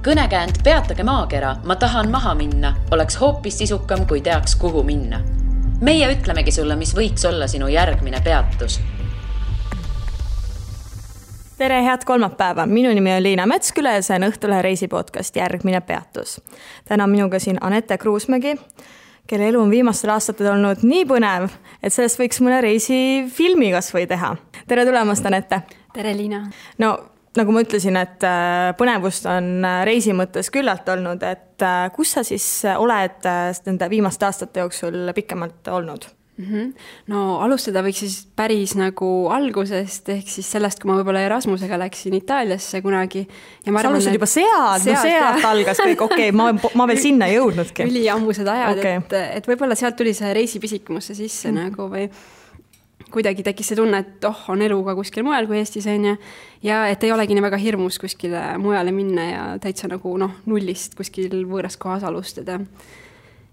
Kõnekäänd Peatage maakera, ma tahan maha minna, oleks hoopis sisukam, kui teaks, kuhu minna. Meie ütlemegi sulle, mis võiks olla sinu järgmine peatus. Tere, head kolmapäeva. Minu nimi on Liina Metsküla ja see on Õhtulehe reisipodcast Järgmine peatus. Täna minuga siin Anette Kruusmägi, kelle elu on viimastel aastatel olnud nii põnev, et sellest võiks mõne reisifilmi kas või teha. Tere tulemast, Anette. Tere, Liina. No, nagu ma ütlesin, et põnevust on reisi mõttes küllalt olnud, et kus sa siis oled nende viimaste aastate jooksul pikemalt olnud? No alustada võiks siis päris nagu algusest, ehk siis sellest, kui ma võib-olla Erasmusega läksin Itaaliasse kunagi. Ja ma sa alustasid juba sealt algas kõik, okei, ma veel sinna ei jõudnudki. Üli ammused ajad, et võib-olla sealt tuli see reisipisikmusse sisse nagu või kuidagi tekkis see tunne, et on elu ka kuskil mujal kui Eestis ja et ei olegi nii väga hirmus kuskile mujale minna ja täitsa nagu nullist kuskil võõras kohas alustada.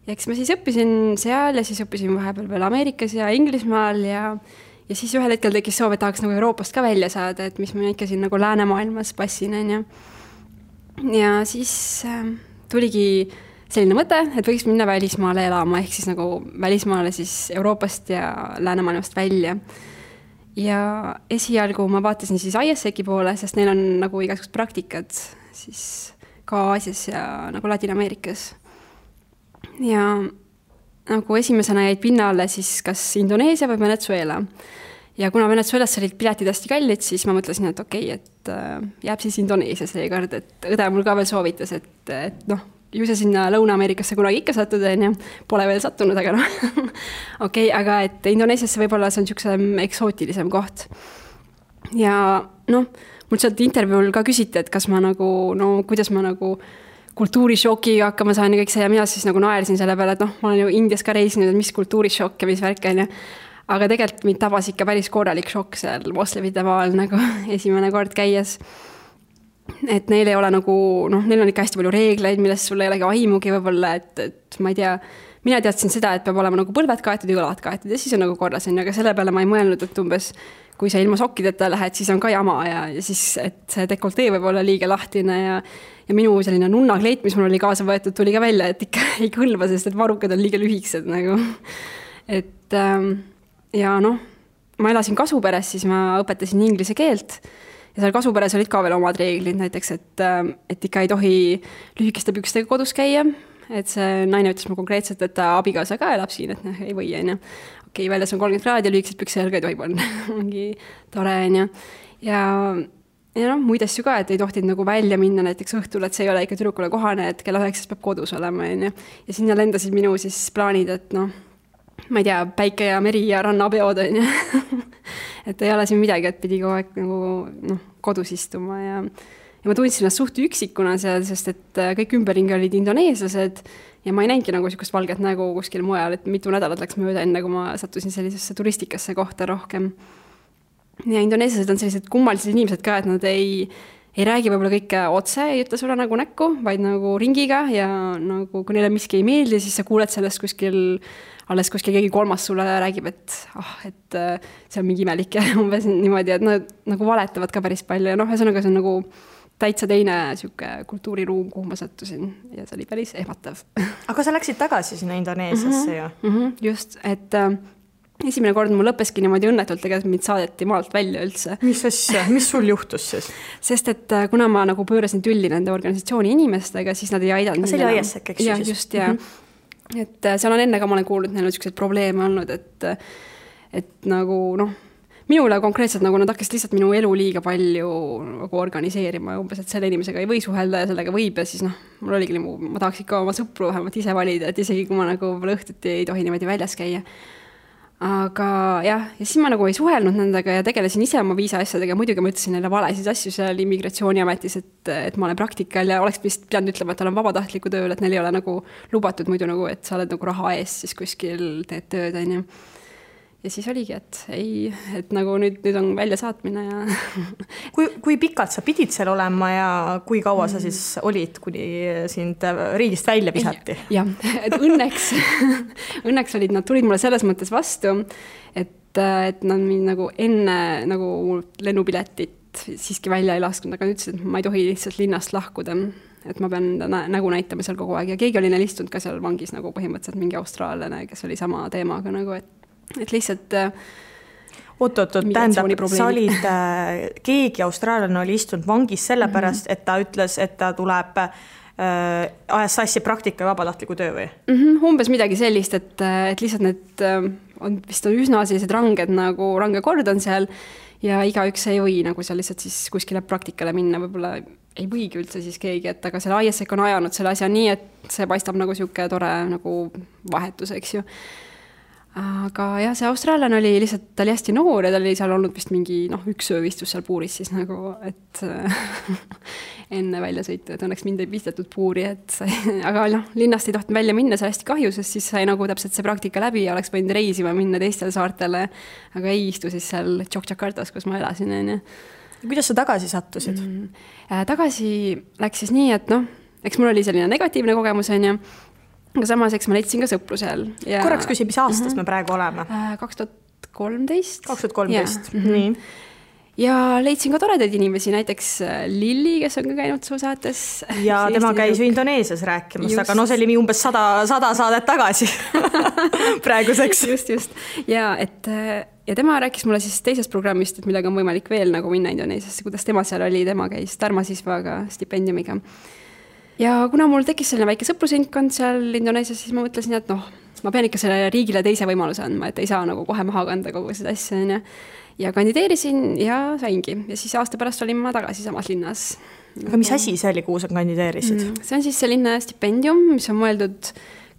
Ja eks ma siis õppisin seal ja siis õppisin vahepeal veel Ameerikas ja Inglismaal ja siis ühel hetkel tekkis soov, et tahaks nagu Euroopast ka välja saada, et mis ma ikka siin nagu läänemaailmas passin. Ja siis tuligi selline mõte, et võiks minna välismaale elama, ehk siis nagu välismaale siis Euroopast ja läänemaailmast välja. Ja esialgu ma vaatasin siis ISEC-i poole, sest neil on nagu igasugused praktikad siis ka Aasias ja nagu Ladina-Ameerikas. Ja nagu esimesena jäid pinnale siis kas Indoneesia või Venezuela. Ja kuna Venezuelas olid piletid hästi kallid, siis ma mõtlesin, et et jääb siis Indoneesia seekord, et õde mul ka veel soovitas, et ju see sinna Lõuna-Ameerikasse kunagi ikka sattuda, pole veel sattunud, aga aga et Indoneesiasse võib-olla see on niisugusem eksootilisem koht. Ja mul sealt intervjuul ka küsiti, et kas ma nagu, kuidas ma nagu kultuurishokiga hakkama saan ja kõik see ja mina siis nagu naersin selle peale, et ma olen ju Indias ka reisinud, et mis kultuurishokk ja mis värk on. Aga tegelikult mind tabas ikka päris korralik šokk seal moslemite maal nagu esimene kord käies. Et neil ei ole nagu, neil on ikka hästi palju reegleid, millest sul ei olegi aimugi võib-olla, et ma ei tea, mina teadsin seda, et peab olema nagu põlved kaetud ja õlad kaetud ja siis on nagu korras, aga selle peale ma ei mõelnud, et umbes kui sa ilma sokkideta lähed, siis on ka jama ja siis, et see dekoltee võib olla liiga lahtine ja minu selline nunnakleit, mis mul oli kaasa võetud, tuli ka välja, et ikka ei kõlba, sest et varrukad on liiga lühiksed nagu. Et ja ma elasin Kasuperes, siis ma õpetasin inglise keelt ja seal Kasuperes olid ka veel omad reeglid, näiteks, et ikka ei tohi lühikeste pükstega kodus käia, et see naine ütles mu konkreetselt, et ta abikaasa ka elab siin, et ei või, okei, väljas on 30 kraadi ja lühikesed pükse jalga ei tohi panna. Ongi tore, ja muid asju ka, et ei tohtid nagu välja minna näiteks õhtul, et see ei ole ikka tüdrukule kohane, et kella 9 peab kodus olema. Ja sinna lendasid minu siis plaanid, et ma ei tea, päike ja meri ja rannapeod. Et ei ole siin midagi, et pidi kogu aeg nagu kodus istuma ja ma tundsin ennast suht üksikuna seal, sest et kõik ümberringi olid indoneeslased ja ma ei näinudki nagu niisugust valget nägu kuskil mujal, et mitu nädalat läks mööda enne, kui ma sattusin sellisesse turistikasse kohta rohkem. Ja indoneeslased on sellised kummalised inimesed ka, et nad ei räägi võib-olla kõike otse, ei ütle sulle nagu näkku, vaid nagu ringiga ja nagu kui neile miski ei meeldi, siis sa kuuled sellest alles kuskil keegi kolmas sulle räägib, et see on mingi imelik ja umbes niimoodi, et nad nagu valetavad ka päris palju ja ühesõnaga see on nagu täitsa teine kultuuriruum, kuhu ma sattusin ja see oli päris ehmatav. Aga sa läksid tagasi sinna Indoneesiasse ju? Just, et esimene kord mul lõppeski niimoodi õnnetult, tegelikult mind saadeti maalt välja üldse. Mis asja? Mis sul juhtus siis? Sest et kuna ma nagu pöörasin tülli nende organisatsiooni inimestega, siis nad ei aidanud. See oli ISEC, eks ju? Just, ja. Et seal on enne ka ma olen kuulnud, neil on sellised probleeme olnud, et nagu minule konkreetselt nagu nad hakkasid lihtsalt minu elu liiga palju nagu organiseerima umbes, et selle inimesega ei või suhelda ja sellega võib ja siis mul oligi ma tahaks ikka oma sõpru vähemalt ise valida, et isegi kui ma nagu õhtuti ei tohi niimoodi väljas käia. Aga jah, ja siis ma nagu ei suhelnud nendega ja tegelesin ise oma viisa asjadega, muidugi ma ütlesin neile valesid asju seal immigratsiooniametis, et ma olen praktikal ja oleks vist pidanud ütlema, et olen vabatahtliku tööl, et neil ei ole nagu lubatud muidu nagu, et sa oled nagu raha ees siis kuskil teed tööd, Ja siis oligi, et nagu nüüd on välja saatmine ja kui pikalt sa pidid seal olema ja kui kaua sa siis olid, kuni sind riigist välja visati? Jah, et õnneks olid, nad tulid mulle selles mõttes vastu, et nad mind nagu enne nagu lennupiletit siiski välja ei lasknud, aga ütlesid, et ma ei tohi lihtsalt linnast lahkuda. et ma pean nägu näitama seal kogu aeg ja keegi oli neil istunud ka seal vangis nagu põhimõtteliselt mingi austraallane, kes oli sama teemaga nagu, et lihtsalt oot, tähendab, sa olid, keegi austraallane oli istunud vangis sellepärast, et ta ütles, et ta tuleb ajas sassi praktika ja vabatahtliku töö või? Umbes midagi sellist, et lihtsalt need on vist üsna sellised ranged nagu range kord on seal ja igaüks ei või nagu seal lihtsalt siis kuskile praktikale minna, võib-olla ei võigi üldse siis keegi, et aga selle ISEC on ajanud selle asja nii, et see paistab nagu siuke tore nagu vahetus, eks ju. Aga jah, see austraallane oli lihtsalt, ta oli hästi noor ja ta oli seal olnud vist mingi üks öövistus seal puuris siis nagu, et enne välja sõitu, et õnneks mind ei pistetud puuri, aga linnast ei tohtinud välja minna, see hästi kahju, sest siis sai nagu täpselt see praktika läbi ja oleks võinud reisima minna teistele saartele, aga ei istu siis seal Jakartas, kus ma elasin. Kuidas sa tagasi sattusid? Tagasi läks siis nii, et eks mul oli selline negatiivne kogemus, aga samas, eks ma leidsin ka sõpru seal. Korraks küsi, mis aastas me praegu oleme? 2013. 2013, nii. Ja leidsin ka toredaid inimesi, näiteks Lilli, kes on ka käinud su saates. Ja tema käis ju Indoneesias rääkimas, aga see oli umbes 100 saadet tagasi praeguseks. Just. Ja tema rääkis mulle siis teisest programmist, et millega on võimalik veel nagu minna Indoneesiasse, kuidas tema seal oli, tema käis Dharmasisvaga stipendiumiga. Ja kuna mul tekkis selline väike sõprusindkond seal Indoneesias, siis ma mõtlesin, et ma pean ikka selle riigile teise võimaluse andma, et ei saa nagu kohe maha kanda kogu seda asja. Ja kandideerisin ja saingi. Ja siis aasta pärast olin ma tagasi samas linnas. Aga mis asi see oli, kuhu sa kandideerisid? See on siis selline stipendium, mis on mõeldud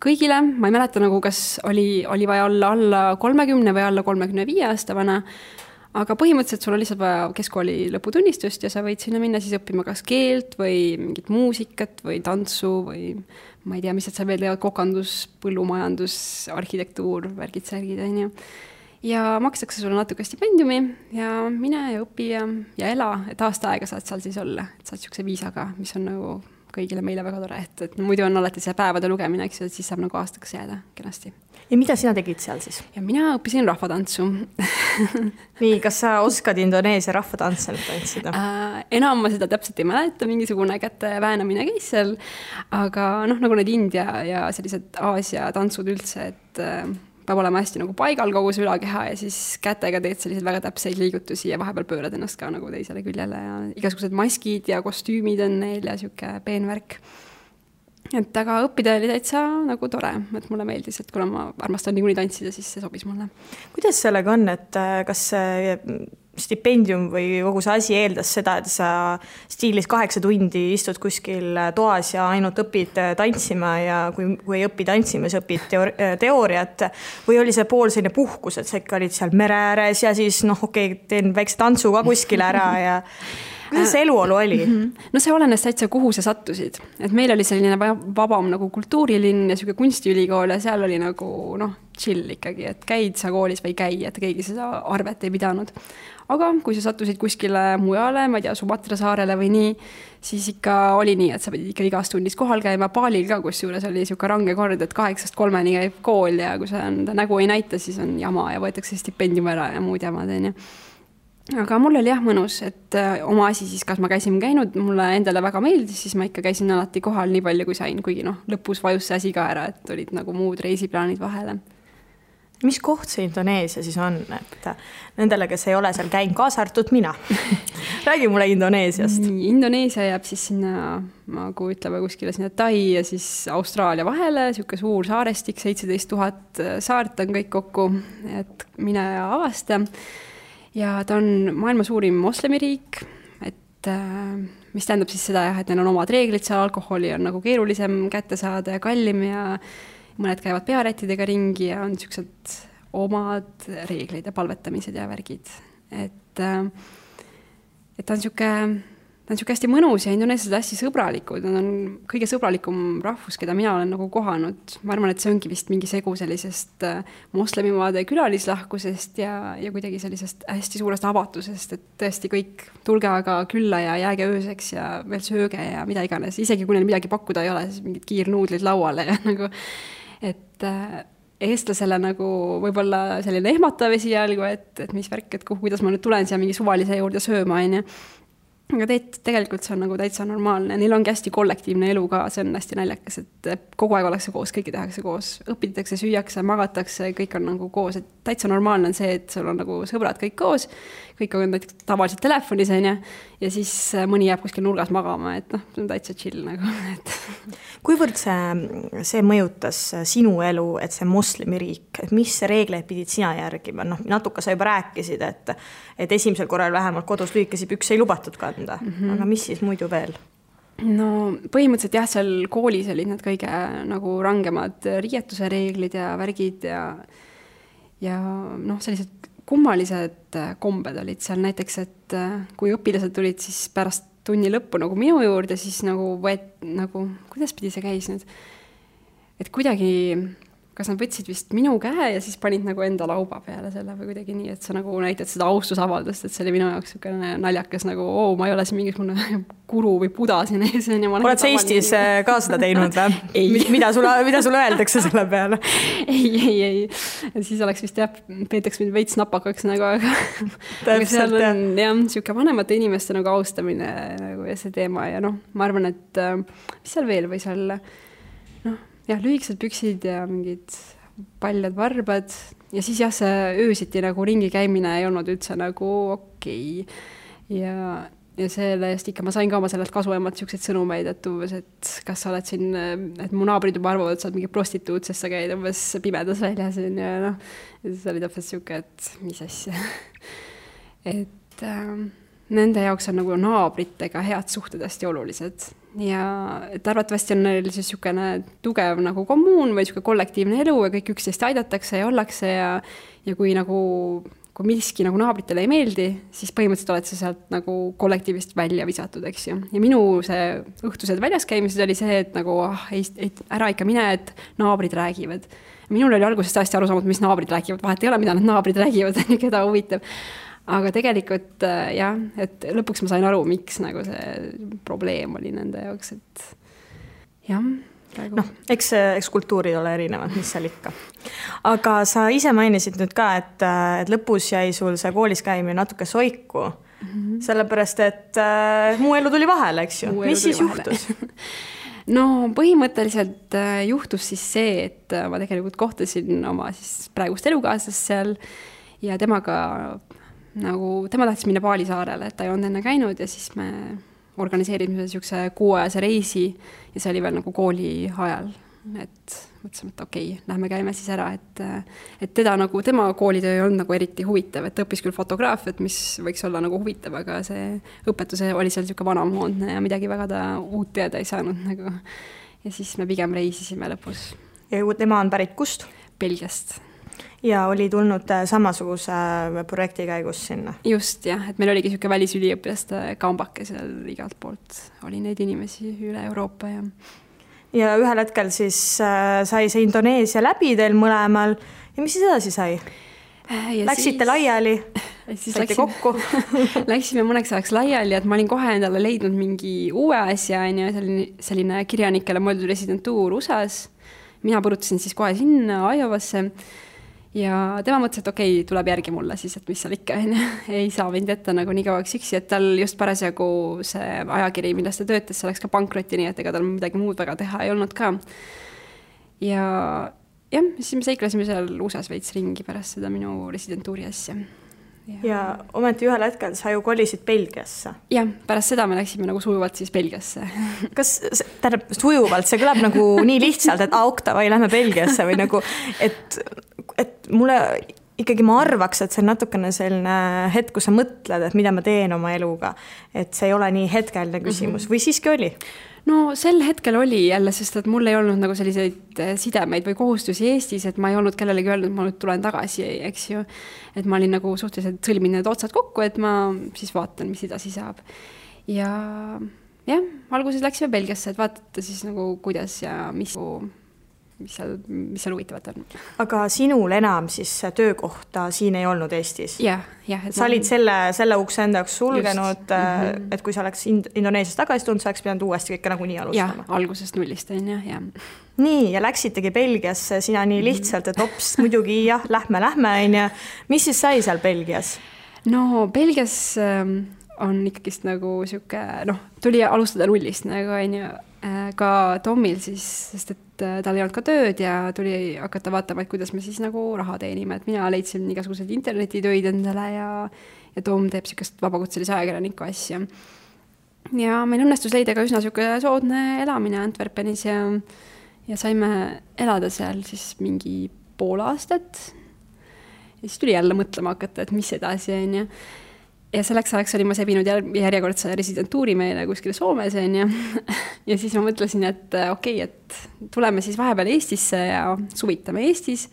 kõigile. Ma ei mäleta nagu, kas oli vaja olla alla 30 või alla 35 aasta vana. Aga põhimõtteliselt sul on lihtsalt vaja keskkooli lõputunnistust ja sa võid sinna minna siis õppima kas keelt või mingit muusikat või tantsu või ma ei tea, mis sa veel teevad, kokandus, põllumajandus, arhitektuur, värgid, särgid, ja makstakse sulle natuke stipendiumi ja mine ja õpi ja ela, et aasta aega saad seal siis olla, et saad siukse viisaga, mis on nagu kõigile meile väga tore, et muidu on alati see päevade lugemine, eks ju, et siis saab nagu aastaks jääda kenasti. Ja mida sina tegid seal siis? Ja mina õppisin rahvatantsu. Nii, kas sa oskad Indoneesia rahvatantse tantsida? Enam ma seda täpselt ei mäleta, mingisugune käte väänamine käis seal, aga nagu need India ja sellised Aasia tantsud üldse, et peab olema hästi nagu paigal kogu see ülakeha ja siis kätega teed sellised väga täpseid liigutusi ja vahepeal pöörad ennast ka nagu teisele küljele ja igasugused maskid ja kostüümid on neil ja siuke peenvärk. Et aga õppida oli täitsa nagu tore, et mulle meeldis, et kuna ma armastan niikuinii tantsida, siis see sobis mulle. Kuidas sellega on, et kas stipendium või kogu see asi eeldas seda, et sa stiilis 8 tundi istud kuskil toas ja ainult õpid tantsima ja kui ei õpi tantsima, siis õpid teooriat või oli see pool selline puhkus, et sa ikka olid seal mere ääres ja siis teen väikse tantsu ka kuskil ära ja kuidas see eluolu oli? No see olenes täitsa, kuhu sa sattusid. Et meil oli selline vabam nagu kultuurilinn ja siuke kunstiülikool ja seal oli nagu chill ikkagi, et käid sa koolis või käi, et keegi seda arvet ei pidanud. Aga kui sa sattusid kuskile mujale, ma ei tea, Sumatra saarele või nii, siis ikka oli nii, et sa pidid ikka igas tundis kohal käima. Paalil ka kusjuures oli siuke range kord, et 8-3 käib kool ja kui sa nägu ei näita, siis on jama ja võetakse stipendium ära ja muud jamad. Aga mul oli mõnus, et oma asi siis, kas ma käisin käinud, mulle endale väga meeldis, siis ma ikka käisin alati kohal nii palju kui sain, kuigi lõpus vajus see asi ka ära, et olid nagu muud reisiplaanid vahele. Mis koht see Indoneesia siis on, et nendele, kes ei ole seal käinud, kaasa arvatud mina? Räägi mulle Indoneesiast. Indoneesia jääb siis sinna, nagu ütleme kuskile sinna Tai ja siis Austraalia vahele, siuke suur saarestik, 17 000 saart on kõik kokku, et mine ja avasta. Ja ta on maailma suurim moslemiriik, et mis tähendab siis seda, et neil on omad reeglid, seal alkoholi on nagu keerulisem kätte saada ja kallim ja mõned käivad pearättidega ringi ja on siuksed omad reeglid ja palvetamised ja värgid. Et ta on siuke hästi mõnus ja indoneeslased hästi sõbralikud. Nad on kõige sõbralikum rahvus, keda mina olen nagu kohanud. Ma arvan, et see ongi vist mingi segu sellisest moslemimaade külalislahkusest ja kuidagi sellisest hästi suurest avatusest, et tõesti kõik tulge aga külla ja jääge ööseks ja veel sööge ja mida iganes. Isegi kui neil midagi pakkuda ei ole, siis mingid kiirnuudlid lauale ja nagu, et eestlasele nagu võib-olla selline ehmatav esialgu, et mis värk, et kuidas ma nüüd tulen siia mingi suvalise juurde sööma, aga tegelikult see on nagu täitsa normaalne, neil ongi hästi kollektiivne elu ka, see on hästi naljakas, et kogu aeg ollakse koos, kõike tehakse koos, õpitakse, süüakse, magatakse, kõik on nagu koos, et täitsa normaalne on see, et sul on nagu sõbrad kõik koos, kõik on tavaliselt telefonis, ja siis mõni jääb kuskil nurgas magama, et see on täitsa chill nagu, et. Kuivõrd see mõjutas sinu elu, et see moslemiriik, et mis reegleid pidid sina järgima? Natuke sa juba rääkisid, et esimesel korral vähemalt kodus lühikesi pükse ei lubatud kanda, aga mis siis muidu veel? No põhimõtteliselt jah, seal koolis olid need kõige nagu rangemad riietuse reeglid ja värgid ja sellised kummalised kombed olid seal näiteks, et kui õpilased tulid siis pärast tunni lõppu nagu minu juurde, siis nagu kuidas pidi see käis nüüd? Et kuidagi, kas nad võtsid vist minu käe ja siis panid nagu enda lauba peale selle või kuidagi nii, et sa nagu näitad seda austusavaldust, et see oli minu jaoks selline naljakas nagu, ma ei ole siin mingisugune guru või buda siin ees. Oled sa Eestis ka seda teinud või? Mida sulle öeldakse selle peale? Ei. Siis oleks vist peetaks mind veits napakaks nagu, aga seal on jah, siuke vanemate inimeste nagu austamine nagu ja see teema ja ma arvan, et mis seal veel võis olla? Jah, lühikesed püksid ja mingid paljad varbad ja siis jah, see öösiti nagu ringi käimine ei olnud üldse nagu okei. Ja selle eest ikka ma sain ka oma sellelt kasuemalt siukseid sõnumeid, et umbes, et kas sa oled siin, et mu naabrid juba arvavad, et sa oled mingi prostituut, sest sa käid umbes pimedas väljas ja siis oli täpselt siuke, et mis asja. Et nende jaoks on nagu naabritega head suhted hästi olulised. Ja et arvatavasti on neil siis siukene tugev nagu kommuun või siuke kollektiivne elu ja kõik üksteist aidatakse ja ollakse ja kui miski nagu naabritele ei meeldi, siis põhimõtteliselt oled sa sealt nagu kollektiivist välja visatud, eks ju. Ja minu see õhtused väljas käimises oli see, et nagu ära ikka mine, et naabrid räägivad. Minul oli alguses hästi aru saamata, mis naabrid räägivad, vahet ei ole, mida need naabrid räägivad, keda huvitab. Aga tegelikult jah, et lõpuks ma sain aru, miks nagu see probleem oli nende jaoks, et jah. Eks kultuurid ole erinevad, mis seal ikka. Aga sa ise mainisid nüüd ka, et lõpus jäi sul see koolis käimine natuke soiku, sellepärast, et muu elu tuli vahele, eks ju. Mis siis juhtus? No põhimõtteliselt juhtus siis see, et ma tegelikult kohtasin oma siis praegust elukaaslast seal ja temaga tema tahtis minna Paalisaarele, et ta ei olnud enne käinud ja siis me organiseerisime siukse 6-ajase reisi ja see oli veel nagu kooli ajal, et mõtlesime, et okei, lähme käime siis ära, et teda nagu, tema koolitöö ei olnud nagu eriti huvitav, et õppis küll fotograafiat, mis võiks olla nagu huvitav, aga see õpetus oli seal siuke vanamoodne ja midagi väga ta uut teada ei saanud nagu. Ja siis me pigem reisisime lõpus. Ja tema on pärit kust? Belgiast. Ja oli tulnud samasuguse projekti käigus sinna? Just jah, et meil oligi siuke välisüliõpilaste kambake seal igalt poolt. Oli neid inimesi üle Euroopa ja ühel hetkel siis sai see Indoneesia läbi teil mõlemal ja mis siis edasi sai? Läksite laiali? Saite kokku? Läksime mõneks ajaks laiali, et ma olin kohe endale leidnud mingi uue asja, selline kirjanikele mõeldud residentuur USAs. Mina põrutasin siis kohe sinna Iowasse ja tema mõtles, et okei, tuleb järgi mulle siis, et mis seal ikka ei saa mind jätta nagu nii kauaks üksi, et tal just parasjagu see ajakiri, millest ta töötas, see läks ka pankrotti, nii et ega tal midagi muud väga teha ei olnud ka. Ja jah, siis me seiklesime seal USA-s veits ringi pärast seda minu residentuuri asja. Ja ometi ühel hetkel sa ju kolisid Belgiasse. Jah, pärast seda me läksime nagu sujuvalt siis Belgiasse. Kas sujuvalt, see kõlab nagu nii lihtsalt, et okta või lähme Belgiasse või nagu, et mulle ikkagi ma arvaks, et see on natukene selline hetk, kus sa mõtled, et mida ma teen oma eluga, et see ei ole nii hetkeline küsimus või siiski oli? No sel hetkel oli jälle, sest et mul ei olnud nagu selliseid sidemeid või kohustusi Eestis, et ma ei olnud kellelegi öelnud, et ma nüüd tulen tagasi, eks ju. Et ma olin nagu suhteliselt sõlmin need otsad kokku, et ma siis vaatan, mis edasi saab. Ja jah, alguses läksime Belgiasse, et vaadata siis nagu kuidas ja mis seal huvitavat on. Aga sinul enam siis töökohta siin ei olnud Eestis? Jah. Sa olid selle ukse enda jaoks sulgenud, et kui sa oleks Indoneesias tagasi tulnud, sa oleks pidanud uuesti kõike nagu nii alustama? Jah, algusest nullist on jah. Nii, ja läksitegi Belgiasse sina nii lihtsalt, et hops, muidugi jah, lähme. Mis siis sai seal Belgias? No Belgias on ikkagist nagu sihuke, tuli alustada nullist nagu onju, ka Tomil siis, sest et tal ei olnud ka tööd ja tuli hakata vaatama, et kuidas me siis nagu raha teenime, et mina leidsin igasuguseid internetitöid endale ja Tom teeb siukest vabakutselise ajakirjaniku asja. Ja meil õnnestus leida ka üsna siuke soodne elamine Antwerpenis ja saime elada seal siis mingi pool aastat. Ja siis tuli jälle mõtlema hakata, et mis edasi on ja selleks ajaks olin ma sebinud järjekordse residentuuri meile kuskile Soomes ja siis ma mõtlesin, et okei, et tuleme siis vahepeal Eestisse ja suvitame Eestis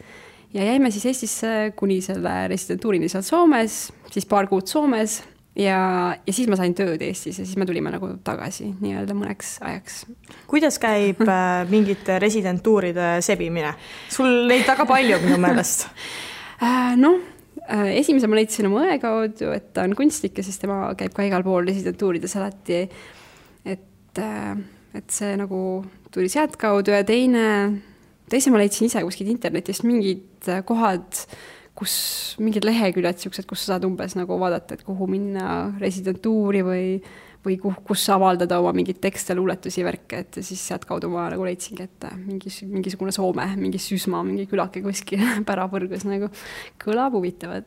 ja jäime siis Eestisse kuni selle residentuurini seal Soomes, siis paar kuud Soomes ja siis ma sain tööd Eestis ja siis me tulime nagu tagasi nii-öelda mõneks ajaks. Kuidas käib mingite residentuuride sebimine? Sul neid väga palju minu meelest. Esimese ma leidsin oma õe kaudu, et ta on kunstnik ja siis tema käib ka igal pool residentuurides alati, et see nagu tuli sealt kaudu ja teise ma leidsin ise kuskil internetist mingid kohad, mingid leheküljed, kus sa saad umbes nagu vaadata, et kuhu minna residentuuri või kus avaldada oma mingid tekste, luuletusi, värke, et siis sealt kaudu ma nagu leidsingi, et mingisugune Soome, mingi Süsma, mingi külake kuskil pärapõrgus nagu kõlab huvitavad.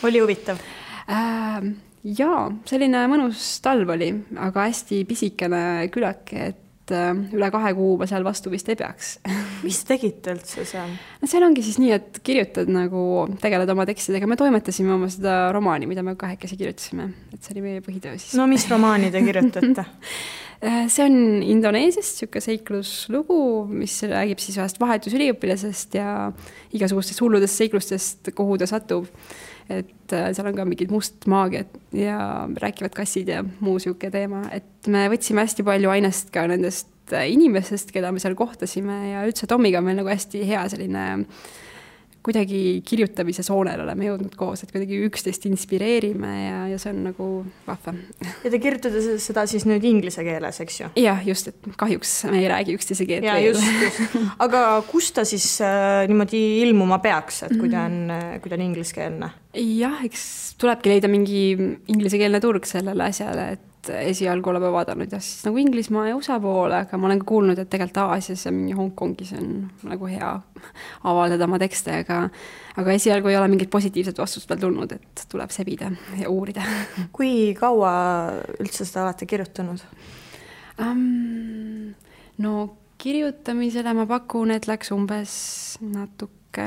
Oli huvitav? Jaa, selline mõnus talv oli, aga hästi pisikene külake, et üle 2 kuu ma seal vastu vist ei peaks. Mis tegite üldse seal? Seal ongi siis nii, et kirjutad nagu, tegeled oma tekstidega. Me toimetasime oma seda romaani, mida me 2 kirjutasime. Et see oli meie põhitöö siis. No mis romaani te kirjutate? See on Indoneesiast siuke seikluslugu, mis räägib siis vahest vahetusüliõpilasest ja igasugustest hulludest seiklustest, kuhu ta satub. Et seal on ka mingid must maagiad ja rääkivad kassid ja muu siuke teema. Et me võtsime hästi palju ainest ka nendest inimestest, keda me seal kohtasime ja üldse Tomiga meil nagu hästi hea selline kuidagi kirjutamise soonel oleme jõudnud koos, et kuidagi üksteist inspireerime ja see on nagu vahva. Ja te kirjutate seda siis nüüd inglise keeles, eks ju? Jah, just, et kahjuks me ei räägi üksteise keelt ja, veel. Just. Aga kus ta siis niimoodi ilmuma peaks, et kui ta on ingliskeelne? Jah, eks tulebki leida mingi inglisekeelne turg sellele asjale, et esialgu oleme vaadanud ja siis nagu Inglismaa ja USA poole, aga ma olen ka kuulnud, et tegelikult Aasias ja mingi Hongkongis on nagu hea avaldada oma tekste, aga esialgu ei ole mingit positiivset vastust veel tulnud, et tuleb sebida ja uurida. Kui kaua üldse seda olete kirjutanud? Kirjutamisele ma pakun, et läks umbes natuke,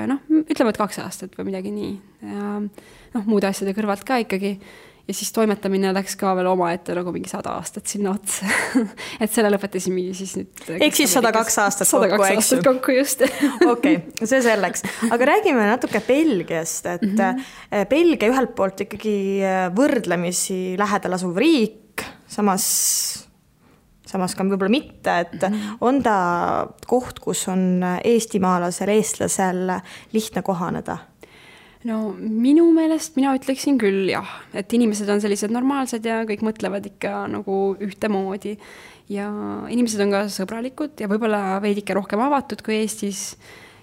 ütleme, et 2 aastat või midagi nii. Ja muude asjade kõrvalt ka ikkagi. Ja siis toimetamine läks ka veel oma ette nagu mingi 100 aastat sinna otsa. Et selle lõpetasime siis nüüd... Ehk siis 102 aastat kokku, 102 aastat kokku, just. Okei, see selleks. Aga räägime natuke Belgiast, et Belgia ühelt poolt ikkagi võrdlemisi lähedal asuv riik, samas ka võib-olla mitte, et on ta koht, kus on eestimaalasel, eestlasel lihtne kohaneda? Minu meelest mina ütleksin küll jah, et inimesed on sellised normaalsed ja kõik mõtlevad ikka nagu ühtemoodi ja inimesed on ka sõbralikud ja võib-olla veidike rohkem avatud kui Eestis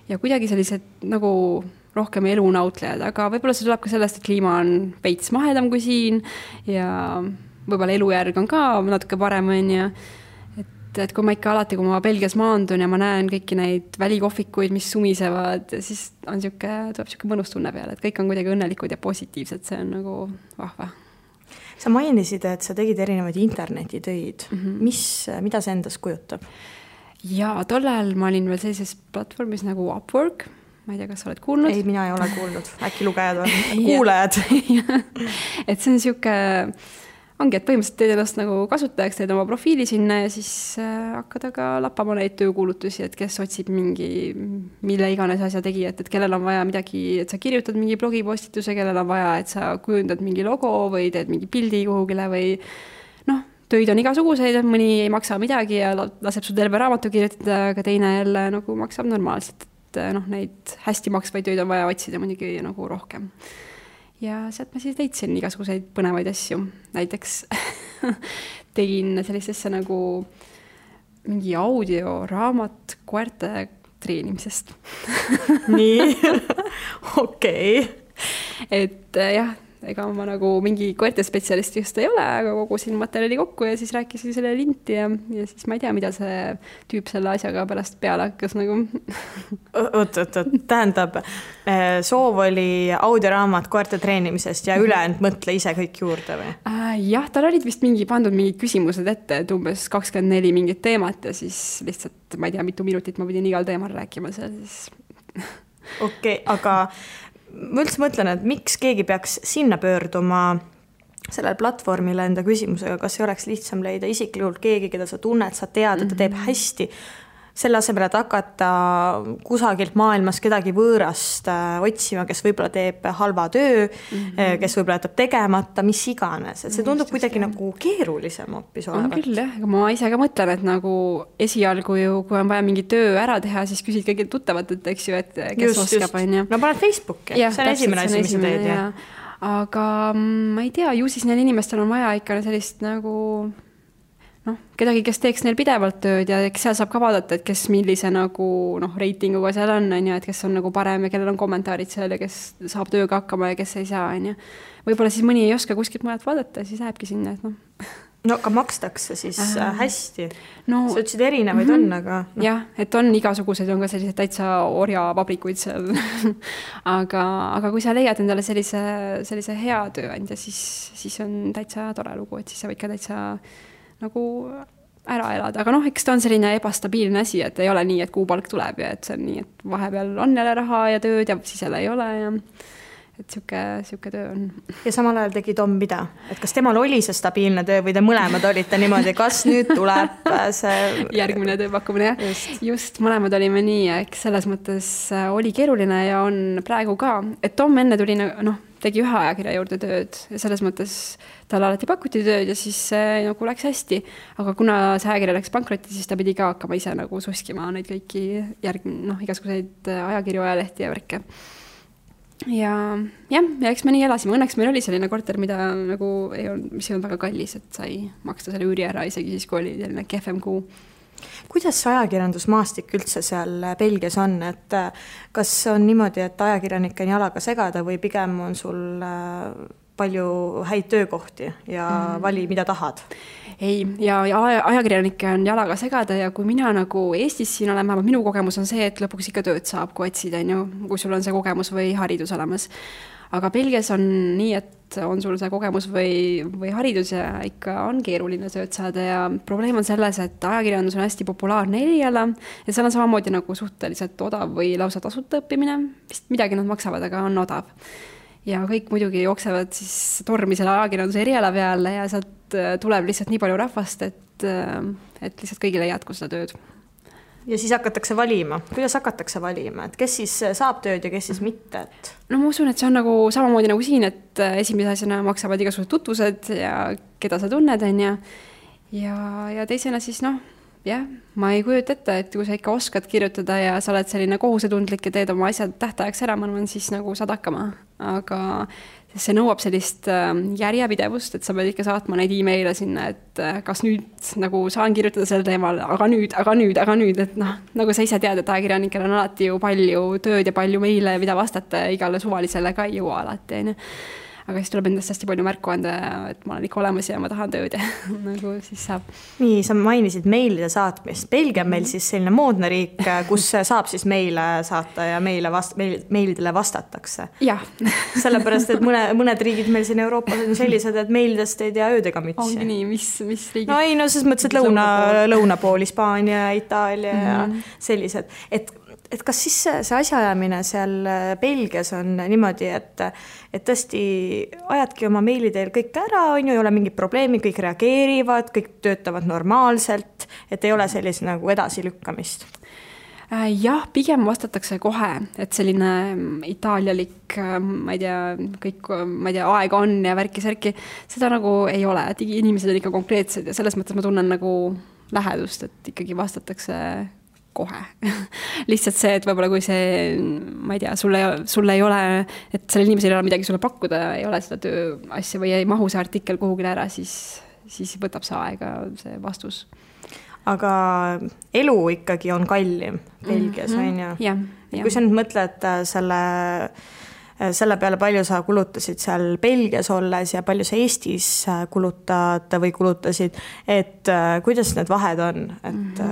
ja kuidagi sellised nagu rohkem elunautlejad, aga võib-olla see tuleb ka sellest, et kliima on veits mahedam kui siin ja võib-olla elujärg on ka natuke parem on ja et kui ma ikka alati, kui ma Belgias maandun ja ma näen kõiki neid välikohvikuid, mis sumisevad, siis tuleb siuke mõnus tunne peale, et kõik on kuidagi õnnelikud ja positiivsed, see on nagu vahva. Sa mainisid, et sa tegid erinevaid internetitöid. Mida see endas kujutab? Ja tollal ma olin veel sellises platvormis nagu Upwork. Ma ei tea, kas sa oled kuulnud? Ei, mina ei ole kuulnud. Äkki lugejad on kuulejad. Et see on siuke... Ongi, et põhimõtteliselt teed ennast nagu kasutajaks, teed oma profiili sinna ja siis hakkad aga lappama neid töökuulutusi, et kes otsib mille iganes asja tegijat, et kellel on vaja midagi, et sa kirjutad mingi blogipostituse, kellel on vaja, et sa kujundad mingi logo või teed mingi pildi kuhugile või töid on igasuguseid, mõni ei maksa midagi ja laseb sul terve raamatu kirjutada, aga teine jälle nagu maksab normaalselt, et neid hästi maksvaid töid on vaja otsida muidugi nagu rohkem. Ja sealt ma siis leidsin igasuguseid põnevaid asju. Näiteks tegin sellist asja nagu mingi audioraamat koerte treenimisest. Nii, okei. Et jah, ega ma nagu mingi koertespetsialist just ei ole, aga kogusin materjali kokku ja siis rääkisin selle linti ja siis ma ei tea, mida see tüüp selle asjaga pärast peale hakkas nagu. Oot, tähendab, soov oli audioraamat koerte treenimisest ja ülejäänud mõtle ise kõik juurde või? Jah, tal olid vist pandud mingid küsimused ette, et umbes 24 mingit teemat ja siis lihtsalt, ma ei tea, mitu minutit ma pidin igal teemal rääkima seal siis. Okei, aga ma üldse mõtlen, et miks keegi peaks sinna pöörduma sellel platvormile enda küsimusega, kas ei oleks lihtsam leida isiklikult keegi, keda sa tunned, sa tead, et ta teeb hästi, selle asemel, et hakata kusagilt maailmas kedagi võõrast otsima, kes võib-olla teeb halva töö, kes võib-olla jätab tegemata, mis iganes. Et see tundub kuidagi nagu keerulisem hoopis olevat. On küll, jah. Ma ise ka mõtlen, et nagu esialgu ju, kui on vaja mingi töö ära teha, siis küsid kõigi tuttavat, et eks ju, et kes oskab. No paned Facebooki, see on esimene asi, mis sa teed. Aga ma ei tea, ju siis neil inimestel on vaja ikka sellist nagu kedagi, kes teeks neil pidevalt tööd ja seal saab ka vaadata, et kes millise nagu reitinguga seal on, et kes on nagu parem ja kellel on kommentaarid seal ja kes saab tööga hakkama ja kes ei saa. Võib-olla siis mõni ei oska kuskilt mõned vaadata ja siis lähebki sinna. No aga makstakse siis hästi. Sa ütlesid erinevaid on, aga... Jah, et on igasuguseid, on ka sellised täitsa orjavabrikuid seal. aga kui sa leiad endale sellise hea tööandja, siis on täitsa tore lugu, et siis sa võid ka täitsa nagu ära elada, aga eks ta on selline ebastabiilne asi, et ei ole nii, et kuupalk tuleb ja et see on nii, et vahepeal on jälle raha ja tööd ja siis jälle ei ole ja et siuke töö on. Ja samal ajal tegi Tom mida? Et kas temal oli see stabiilne töö või te mõlemad olite niimoodi, kas nüüd tuleb see... Järgmine tööpakkumine, jah. Just mõlemad olime nii, eks selles mõttes oli keeruline ja on praegu ka, et Tom enne tuli tegi ühe ajakirja juurde tööd ja selles mõttes tal alati pakuti tööd ja siis nagu läks hästi. Aga kuna see ajakirja läks pankrotti, siis ta pidi ka hakkama ise nagu suskima neid kõiki igasuguseid ajakirju ajalehti ja värke. Ja eks me nii elasime. Õnneks meil oli selline korter, mida nagu mis ei olnud väga kallis, et sai maksta selle üüri ära isegi siis, kui oli selline kehvem kuu. Kuidas ajakirjandusmaastik üldse seal Belgias on, et kas on niimoodi, et ajakirjanik on jalaga segada või pigem on sul palju häid töökohti ja vali, mida tahad? Ei, ja ajakirjanikke on jalaga segada ja kui mina nagu Eestis siin olen, minu kogemus on see, et lõpuks ikka tööd saab, kui otsid, kui sul on see kogemus või haridus olemas. Aga Belgias on nii, et on sul see kogemus või haridus ja ikka on keeruline tööd saada ja probleem on selles, et ajakirjandus on hästi populaarne eriala ja seal on samamoodi nagu suhteliselt odav või lausa tasuta õppimine. Vist midagi nad maksavad, aga on odav. Ja kõik muidugi jooksevad siis tormi selle ajakirjanduse eriala peale ja sealt tuleb lihtsalt nii palju rahvast, et lihtsalt kõigile ei jätku seda tööd. Ja siis hakatakse valima. Kuidas hakatakse valima? Et kes siis saab tööd ja kes siis mitte? No ma usun, et see on nagu samamoodi nagu siin, et esimese asjana maksavad igasugused tutvused ja keda sa tunned, ja teisena siis ma ei kujuta ette, et kui sa ikka oskad kirjutada ja sa oled selline kohusetundlik ja teed oma asjad tähtajaks ära, ma arvan, siis nagu saad hakkama. Aga see nõuab sellist järjepidevust, et sa pead ikka saatma neid e-maile sinna, et kas nüüd nagu saan kirjutada selle teemal, aga nüüd, et nagu sa ise tead, et ajakirjanikel on alati ju palju tööd ja palju meile, mida vastata ja igale suvalisele ka ei jõua alati, aga siis tuleb endast hästi palju märku anda, et ma olen ikka olemas ja ma tahan tööd ja nagu siis saab. Nii, sa mainisid meilide saatmist. Belgia on meil siis selline moodne riik, kus saab siis meile saata ja meilidele vastatakse. Jah. Sellepärast, et mõned riigid meil siin Euroopas on sellised, et meilidest ei tea öödega mütsi. Ongi nii, mis riigid? No ei, ses mõttes, et lõunapool, Hispaania, Itaalia ja sellised. Et kas siis see asjaajamine seal Belgias on niimoodi, et tõesti ajadki oma meili teel kõik ära, ei ole mingid probleemi, kõik reageerivad, kõik töötavad normaalselt, et ei ole sellist nagu edasilükkamist? Jah, pigem vastatakse kohe, et selline itaalialik, ma ei tea, aega on ja värki-särki, seda nagu ei ole, et inimesed on ikka konkreetsed ja selles mõttes ma tunnen nagu lähedust, et ikkagi vastatakse kohe. Lihtsalt see, et võib-olla kui see, ma ei tea, sulle ei ole, et sellel inimesel ei ole midagi sulle pakkuda, ei ole seda tööasja või ei mahu see artikkel kuhugile ära, siis võtab see aega see vastus. Aga elu ikkagi on kallim Belgias, on ju? Ja. Kui sa nüüd mõtled selle selle peale palju sa kulutasid seal Belgias olles ja palju sa Eestis kulutad või kulutasid, et kuidas need vahed on, et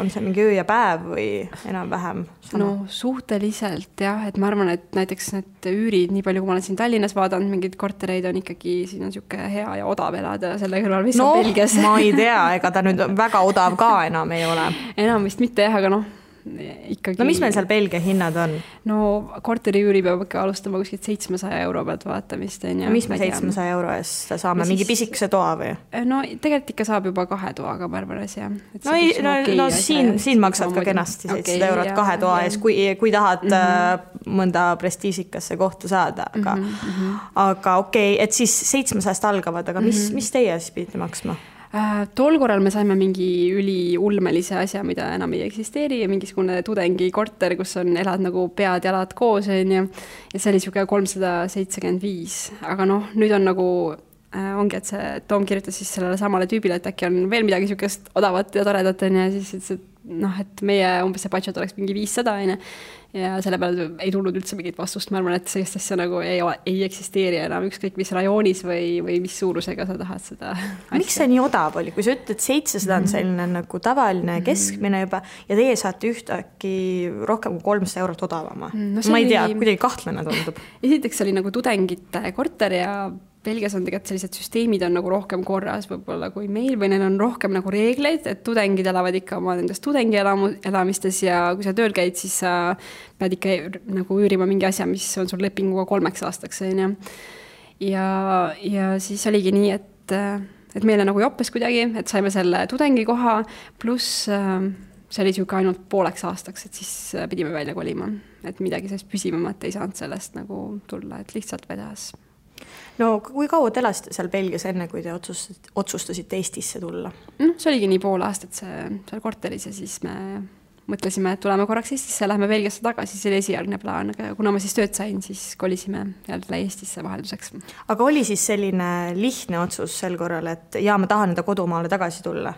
on see mingi öö ja päev või enam-vähem sama? No suhteliselt jah, et ma arvan, et näiteks need üürid, nii palju kui ma olen siin Tallinnas vaadanud, mingid kortereid on ikkagi, siin on siuke hea ja odav elada selle kõrval, mis on Belgias. Ma ei tea, ega ta nüüd väga odav ka enam ei ole. Enam vist mitte jah, aga ikkagi... No mis meil seal Belgia hinnad on? No korteri üüri peab ikka alustama kuskilt 700 euro pealt vaatamist. Ja mis me 700 euro eest saame? Mingi pisikese toa või? No tegelikult ikka saab juba 2 toaga Barbaras, jah. No siin maksad ka kenasti 700 eurot 2 toa ees, kui tahad mõnda prestiisikasse kohta saada. Aga okei, et siis 700 algavad, aga mis teie siis pidite maksma? Tol korral me saime mingi üliulmelise asja, mida enam ei eksisteeri ja mingisugune tudengi korter, kus elad nagu pead ja jalad koos ja see oli siuke 375, aga nüüd on nagu ongi, et see Tom kirjutas siis sellele samale tüübile, et äkki on veel midagi siukest odavat ja toredat ja siis et meie umbes see budget oleks mingi 500 ja selle peale ei tulnud üldse mingit vastust. Ma arvan, et sellist asja nagu ei eksisteeri enam ükskõik mis rajoonis või mis suurusega sa tahad seda asja. Miks see nii odav oli? Kui sa ütled 700 on selline nagu tavaline keskmine juba ja teie saate ühtaki rohkem kui 300 eurot odavama. Ma ei tea, kuidagi kahtlane tundub. Esiteks oli nagu tudengite korter ja Belgias on tegelikult sellised süsteemid on nagu rohkem korras võib-olla kui meil või neil on rohkem nagu reegleid, et tudengid elavad ikka oma nendest tudengi elamistes ja kui sa tööl käid, siis sa pead ikka nagu üürima mingi asja, mis on sul lepinguga 3 aastaks. Ja siis oligi nii, et meile nagu joppes kuidagi, et saime selle tudengi koha, pluss see oli siuke ainult 5 aastaks, et siis pidime välja kolima, et midagi sellest püsivamat ei saanud sellest nagu tulla, et lihtsalt vedas. No kui kaua te elasite seal Belgias enne, kui te otsustasite Eestisse tulla? See oligi nii 5 aastat seal korteris ja siis me mõtlesime, et tuleme korraks Eestisse ja lähme Belgiasse tagasi, see oli esialgne plaan, aga kuna ma siis tööd sain, siis kolisime jälle Eestisse vahelduseks. Aga oli siis selline lihtne otsus sel korral, et ma tahan enda kodumaale tagasi tulla?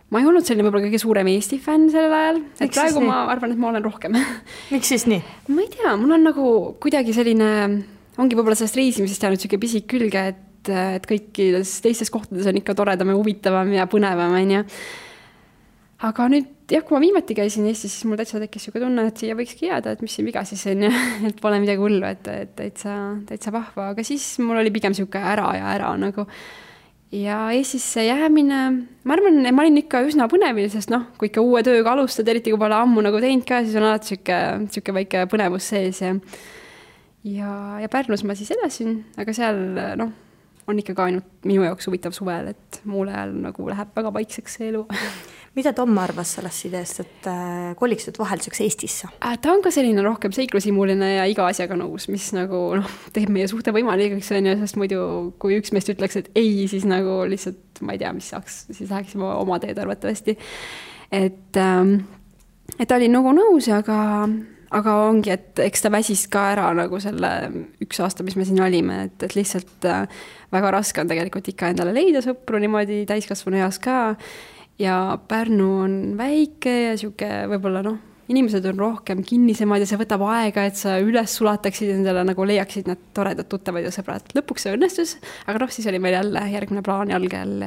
Ma ei olnud selline võib-olla kõige suurem Eesti fänn sellel ajal, et praegu ma arvan, et ma olen rohkem. Miks siis nii? Ma ei tea, mul on nagu kuidagi selline, ongi võib-olla sellest reisimisest jäänud siuke pisik külge, et kõikides teistes kohtades on ikka toredam ja huvitavam ja põnevam. Aga nüüd, kui ma viimati käisin Eestis, siis mul täitsa tekkis siuke tunne, et siia võikski jääda, et mis siin viga siis on, et pole midagi hullu, et täitsa vahva, aga siis mul oli pigem siuke ära nagu. Ja Eestisse jäämine, ma arvan, ma olin ikka üsna põnevil, sest kui ikka uue tööga alustad, eriti kui pole ammu nagu teinud ka, siis on alati siuke väike põnevus sees ja Pärnus ma siis elasin, aga seal on ikka ka ainult minu jaoks huvitav suvel, et muul ajal nagu läheb väga vaikseks see elu. Mida Tom arvas sellest ideest, et koliksid vahelduseks Eestisse? Ta on ka selline rohkem seiklusimuline ja iga asjaga nõus, mis nagu teeb meie suhte võimalikuks, sest muidu kui üks meest ütleks, et ei, siis nagu lihtsalt ma ei tea, mis saaks, siis läheksime oma teed arvatavasti. Et oli nagu nõus, aga ongi, et eks ta väsis ka ära nagu selle 1 aasta, mis me siin olime, et lihtsalt väga raske on tegelikult ikka endale leida sõpru niimoodi täiskasvanu eas ka. Ja Pärnu on väike ja siuke võib-olla inimesed on rohkem kinnisemad ja see võtab aega, et sa üles sulataksid endale nagu leiaksid need toredad tuttavad ja sõbrad. Lõpuks see õnnestus, aga siis oli meil jälle järgmine plaan jalgel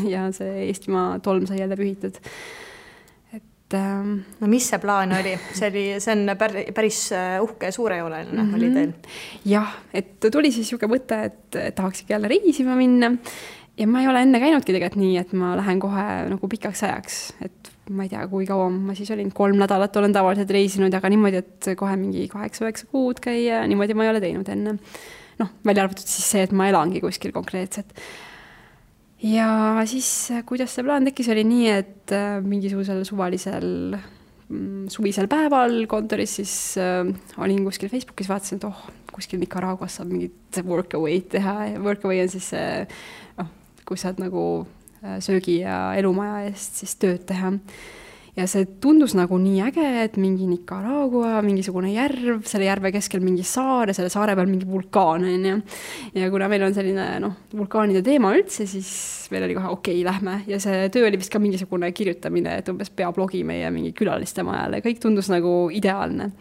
ja see Eestimaa tolm sai jälle pühitud. No mis see plaan oli? See on päris uhke ja suurejooleline oli teil? Jah, et tuli siis siuke mõte, et tahaksid jälle reisima minna. Ja ma ei ole enne käinudki tegelikult nii, et ma lähen kohe nagu pikaks ajaks, et ma ei tea, kui kaua ma siis olin, 3 nädalat olen tavaliselt reisinud, aga niimoodi, et kohe mingi 8-9 kuud käia, niimoodi ma ei ole teinud enne. Välja arvatud siis see, et ma elangi kuskil konkreetselt. Ja siis, kuidas see plaan tekkis, oli nii, et mingisugusel suvalisel suvisel päeval kontoris siis olin kuskil Facebookis, vaatasin, et kuskil Nicaraguas saab mingit workaway teha. Workaway on siis kus saad nagu söögi ja elumaja eest siis tööd teha. ja see tundus nagu nii äge, et mingi Nicaragua, mingisugune järv, selle järve keskel mingi saar ja selle saare peal mingi vulkaan, on ju. Ja kuna meil on selline, vulkaanide teema üldse, siis meil oli kohe okei, lähme. Ja see töö oli vist ka mingisugune kirjutamine, et umbes peablogi meie mingi külaliste majale. Kõik tundus nagu ideaalne.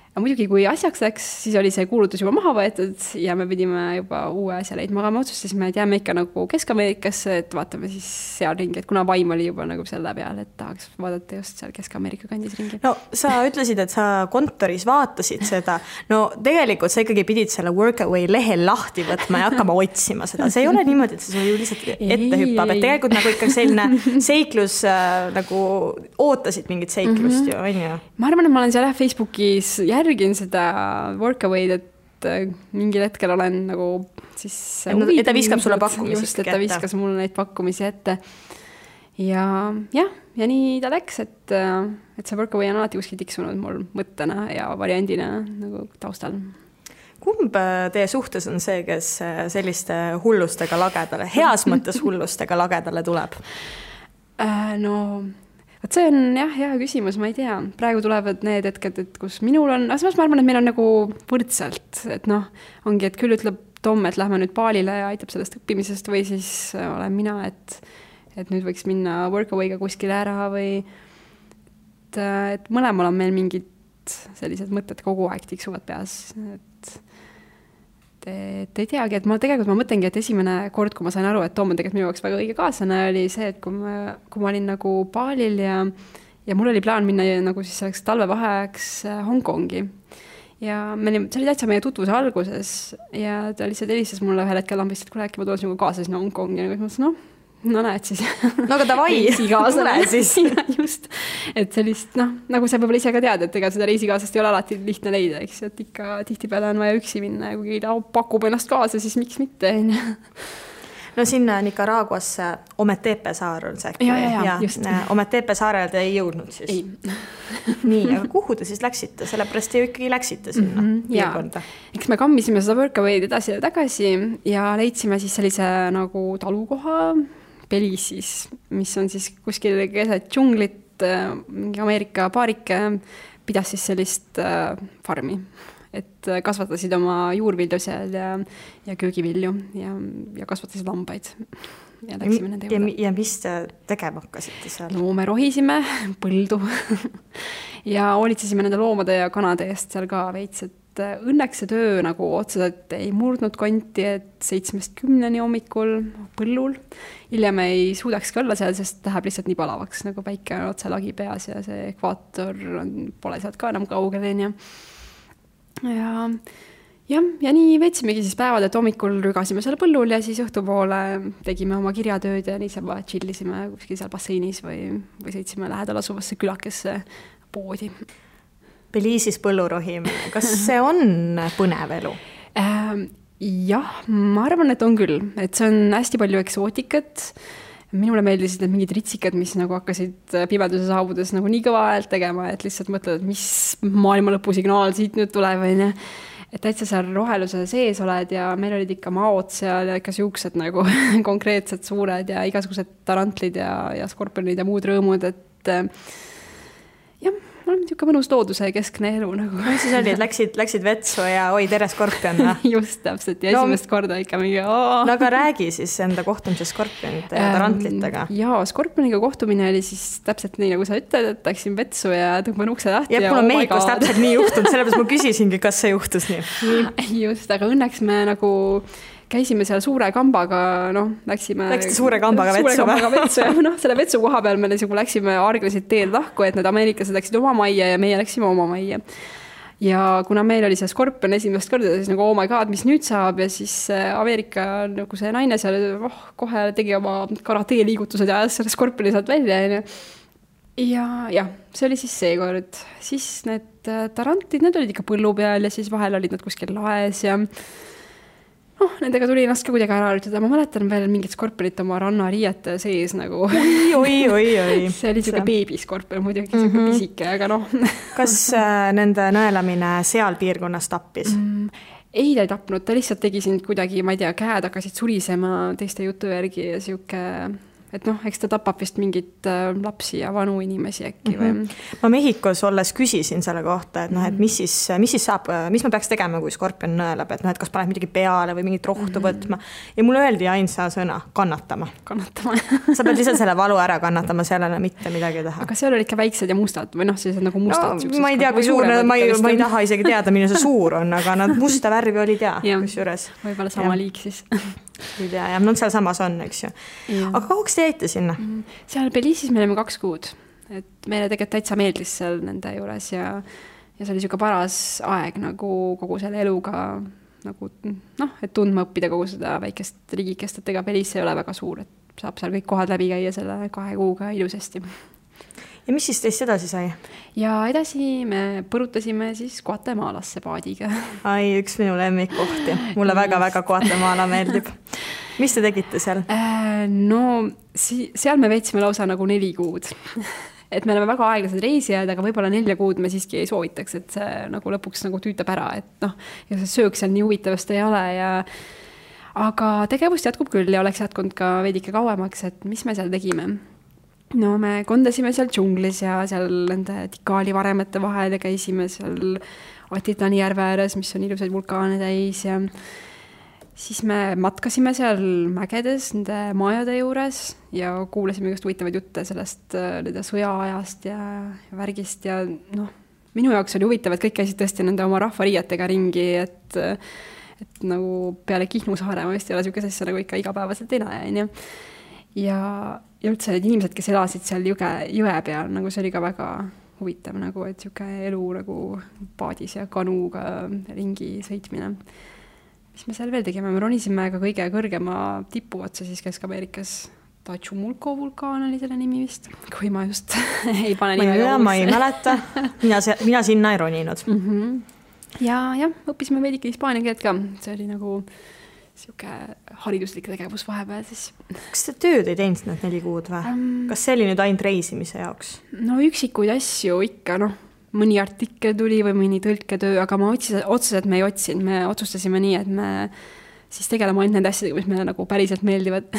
Ja muidugi, kui asjaks läks, siis oli see kuulutus juba maha võetud ja me pidime juba uue asja leidma, aga me otsustasime, et jääme ikka nagu Kesk-Ameerikasse, et vaatame siis seal ringi, et kuna vaim oli juba nagu selle peal, et tahaks vaadata just seal Kesk-Ameerika kandis ringi. No sa ütlesid, et sa kontoris vaatasid seda. No tegelikult sa ikkagi pidid selle Workaway lehel lahti võtma ja hakkama otsima seda. See ei ole niimoodi, et see ju lihtsalt ette hüppab, et tegelikult nagu ikka selline seiklus nagu ootasid mingit seiklust ju, on ju? Ma arvan, et ma olen seal Facebookis järgin seda Workaway'd, et mingil hetkel olen nagu siis et ta viskab sulle pakkumisi just, et ta viskas mulle neid pakkumisi ette ja nii ta läks, et see Workaway on alati kuskil tiksunud mul mõttena ja variandina nagu taustal. Kumb teie suhtes on see, kes selliste hullustega lagedale, heas mõttes hullustega lagedale tuleb? Võt see on hea küsimus, ma ei tea. Praegu tulevad need hetked, et kus minul on, aga ma arvan, et meil on nagu võrdselt, et ongi, et küll ütleb Tom, et lähme nüüd baalile ja aitab sellest õppimisest või siis olen mina, et nüüd võiks minna Workaway'ga kuskile ära või et mõlemal on meil mingid sellised mõtted kogu aeg tiksuvad peas, et ei teagi, et ma mõtlengi, et esimene kord, kui ma sain aru, et Tom on tegelikult minu jaoks väga õige kaaslane, oli see, et kui ma olin nagu baalil ja mul oli plaan minna nagu siis selleks talvevaheajaks Hongkongi. Ja see oli täitsa meie tutvuse alguses ja ta lihtsalt helistas mulle ühel hetkel lambist, et kuule, äkki ma tulen sinuga kaasa sinna Hongkongi ja ma mõtlesin, näed siis. No aga davai, tule siis. Just, et sellist, nagu sa võib-olla ise ka tead, et ega seda reisikaasast ei ole alati lihtne leida, eks, et ikka tihtipeale on vaja üksi minna ja kui pakub ennast kaasa, siis miks mitte. No sinna Nicaraguasse Ometepe saar on see. Ja, just. Ometepe saarele te ei jõudnud siis? Ei. Nii, aga kuhu te siis läksite? Sellepärast te ju ikkagi läksite sinna piirkonda. Eks me kammisime seda Workaway'd edasi ja tagasi ja leidsime siis sellise nagu talukoha Belize'is, mis on siis kuskil keset džunglit, mingi Ameerika paarike pidas siis sellist farmi, et kasvatasid oma juurvilju seal ja köögivilju ja kasvatasid lambaid. Ja läksime nende juurde. Ja mis te tegema hakkasite seal? No me rohisime põldu ja hoolitsesime nende loomade ja kanade eest seal ka veits, et õnneks see töö nagu otseselt ei murdnud konti, et 7-10 hommikul põllul. Hiljem ei suudaks ka olla seal, sest läheb lihtsalt nii palavaks, nagu päike on otse lagi peas ja see ekvaator pole sealt ka enam kaugel. Ja nii veetsimegi siis päevad, et hommikul rügasime seal põllul ja siis õhtupoole tegime oma kirjatööd ja niisama chillisime kuskil seal basseinis või sõitsime lähedal asuvasse külakesse poodi. Belize'is põllurohimine, kas see on põnev elu? Jah, ma arvan, et on küll, et see on hästi palju eksootikat. Minule meeldisid need mingid ritsikad, mis nagu hakkasid pimeduse saabudes nagu nii kõva häält tegema, et lihtsalt mõtled, et mis maailma lõpusignaal siit nüüd tuleb. Et täitsa seal roheluse sees oled ja meil olid ikka maod seal ja ikka siuksed nagu konkreetsed suured ja igasugused tarantlid ja skorpionid ja muud rõõmud, et jah, mul on niisugune mõnus looduse keskne elu nagu. Siis oli, et läksid vetsu ja oi, tere skorpion. Just täpselt ja esimest korda ikka mingi No aga räägi siis enda kohtumise skorpionite ja tarantlitega. Jaa, skorpioniga kohtumine oli siis täpselt nii, nagu sa ütled, et läksin vetsu ja tõmban ukse lahti. Ja mul on mehikus täpselt nii juhtunud, sellepärast ma küsisingi, kas see juhtus nii. Just, aga õnneks me nagu käisime seal suure kambaga, Läksite suure kambaga vetsu ja selle vetsu koha peal me läksime arglesid teed lahku, et need ameeriklased läksid oma majja ja meie läksime oma majja. Ja kuna meil oli see skorpion esimest korda, siis nagu, oh my god, mis nüüd saab, ja siis Ameerika nagu see naine seal kohe tegi oma karate liigutused ja ajas selle skorpioni sealt välja. Ja see oli siis seekord. Siis need tarantlid, need olid ikka põllu peal ja siis vahel olid nad kuskil laes ja nendega tuli ennast ka kuidagi ära harjutada. Ma mäletan veel mingit skorpionit oma rannariiete sees nagu. Oi. See oli siuke beebiskorpion, muidugi siuke pisike, aga Kas nende nõelamine seal piirkonnas tappis? Ei, ta ei tapnud, ta lihtsalt tegi sind kuidagi, ma ei tea, käed hakkasid surisema teiste jutu järgi ja siuke et noh, eks ta tapab vist mingit lapsi ja vanu inimesi äkki või? Ma Mehhikos olles küsisin selle kohta, et noh, et mis siis saab, mis ma peaks tegema, kui skorpion nõelab, et noh, et kas paned midagi peale või mingit rohtu võtma. Ja mulle öeldi ainsa sõna, kannatama. Sa pead lihtsalt selle valu ära kannatama, sellele mitte midagi teha. Aga seal oli ikka väiksed ja mustad või noh, sellised nagu mustad. No, ma ei tea, kui suur, ma ei taha isegi teada, mille see suur on, aga nad musta värvi olid kus juures. Võib-olla sama liik siis. Ei tea, ja seal samas on, eks ju. Aga kauaks te jäite sinna? Seal Belize'is me olime 2 kuud. Et meile tegelikult täitsa meeldis seal nende juures ja see oli siuke paras aeg nagu kogu selle eluga nagu noh, et tundma õppida kogu seda väikest riigikest, et ega Belize ei ole väga suur, et saab seal kõik kohad läbi käia selle 2 kuuga ilusasti. Ja mis siis teist edasi sai? Ja edasi me põrutasime siis Guatemalasse paadiga. Ai, üks minu lemmikkohti. Mulle väga-väga Guatemala meeldib. Mis te tegite seal? No, seal me veetsime lausa nagu 4 kuud. Et me oleme väga aeglased reisijad, aga võib-olla 4 kuud me siiski ei soovitaks, et see nagu lõpuks nagu tüütab ära, et noh, ja see söök seal nii huvitavast ei ole ja aga tegevust jätkub küll ja oleks jätkunud ka veidike kauemaks, et mis me seal tegime? No me kondasime seal džunglis ja seal nende Tikali varemete vahel ja käisime seal Atitlani järve ääres, mis on ilusaid vulkaane täis ja siis me matkasime seal mägedes nende majade juures ja kuulasime just huvitavaid jutte sellest nende sõjaajast ja värgist ja noh, minu jaoks oli huvitav, et kõik käisid tõesti nende oma rahvariietega ringi, et nagu peale Kihnu saare ma vist ei ole niisugune asja nagu ikka igapäevaselt ei näe, on ju. Ja üldse need inimesed, kes elasid seal jõe peal, nagu see oli ka väga huvitav, nagu, et niisugune elu nagu paadis ja kanuga ringi sõitmine. Mis me seal veel tegime? Me ronisime ka kõige kõrgema tipu otsa siis Kesk-Ameerikas. Tachumulco vulkaan oli selle nimi vist, kui ma just ei pane nime. Ma ei mäleta, mina sinna ei roninud. Ja õppisime veidike hispaania keelt ka, see oli nagu siuke hariduslik tegevus vahepeal siis. Kas te tööd ei teinud need 4 kuud või? Kas see oli nüüd ainult reisimise jaoks? No üksikuid asju ikka, noh, mõni artikkel tuli või mõni tõlketöö, aga ma otseselt me ei otsinud, me otsustasime nii, et me siis tegeleme ainult nende asjadega, mis meile nagu päriselt meeldivad.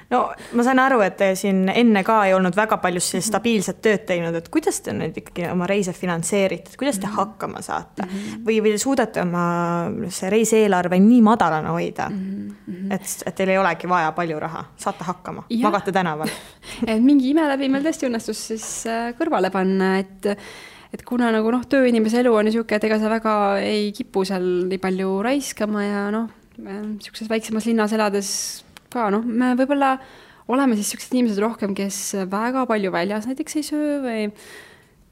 No ma sain aru, et te siin enne ka ei olnud väga palju stabiilset tööd teinud, et kuidas te nüüd ikkagi oma reise finantseerite, kuidas te hakkama saate või suudate oma see reiseelarve nii madalana hoida, et teil ei olegi vaja palju raha, saate hakkama, magate tänaval. Et mingi ime läbi meil tõesti õnnestus siis kõrvale panna, et kuna nagu noh, tööinimese elu on niisugune, et ega sa väga ei kipu seal nii palju raiskama ja noh, niisuguses väiksemas linnas elades ka, noh, me võib-olla oleme siis niisugused inimesed rohkem, kes väga palju väljas näiteks ei söö või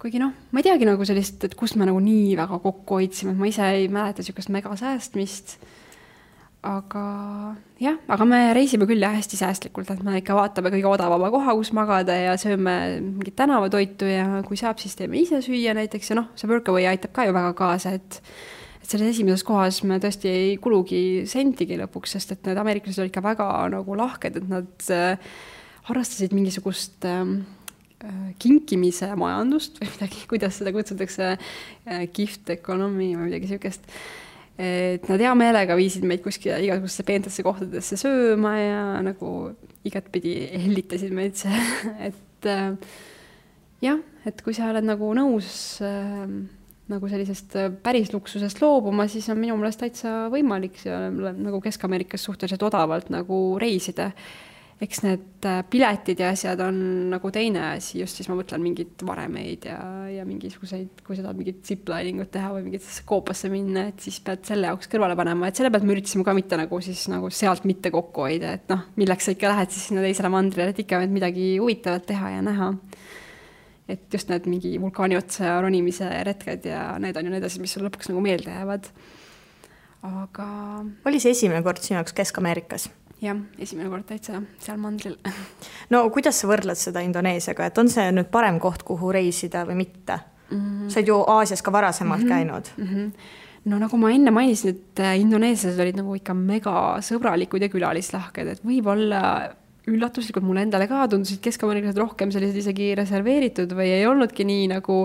kuigi noh, ma ei teagi nagu sellist, et kust me nagu nii väga kokku hoidsime, et ma ise ei mäleta niisugust mega säästmist, aga jah, aga me reisime küll ja hästi säästlikult, et me ikka vaatame kõige odavama koha, kus magada ja sööme mingit tänavatoitu ja kui saab, siis teeme ise süüa näiteks ja noh, see Workaway aitab ka ju väga kaasa, et selles esimeses kohas me tõesti ei kulugi sentigi lõpuks, sest et need ameeriklased olid ikka väga nagu lahked, et nad harrastasid mingisugust kinkimise majandust või midagi, kuidas seda kutsutakse, gift economy või midagi niisugust. Et nad hea meelega viisid meid kuskile igasugusse peentesse kohtadesse sööma ja nagu igatpidi hellitasid meid see, et jah, et kui sa oled nagu nõus nagu sellisest päris luksusest loobuma, siis on minu meelest täitsa võimalik nagu Kesk-Ameerikas suhteliselt odavalt nagu reisida. Eks need piletid ja asjad on nagu teine asi, just siis ma mõtlen mingid varemeid ja mingisuguseid, kui sa tahad mingit zipliningut teha või mingit koopasse minna, et siis pead selle jaoks kõrvale panema, et selle pealt me üritasime ka mitte nagu siis nagu sealt mitte kokku hoida, et noh, milleks sa ikka lähed siis sinna teisele mandrile, et ikka midagi huvitavat teha ja näha. Et just need mingi vulkaani otsa ronimise retked ja need on ju need asjad, mis sul lõpuks nagu meelde jäävad. Aga oli see esimene kord sinu jaoks Kesk-Ameerikas? Jah, esimene kord täitsa seal mandril. No kuidas sa võrdled seda Indoneesiaga, et on see nüüd parem koht, kuhu reisida või mitte? Sa oled ju Aasias ka varasemalt käinud. No nagu ma enne mainisin, et indoneesiased olid nagu ikka mega sõbralikud ja külalislahked, et võib-olla üllatuslikult mulle endale ka tundusid Kesk-Ameeriklased rohkem sellised isegi reserveeritud või ei olnudki nii nagu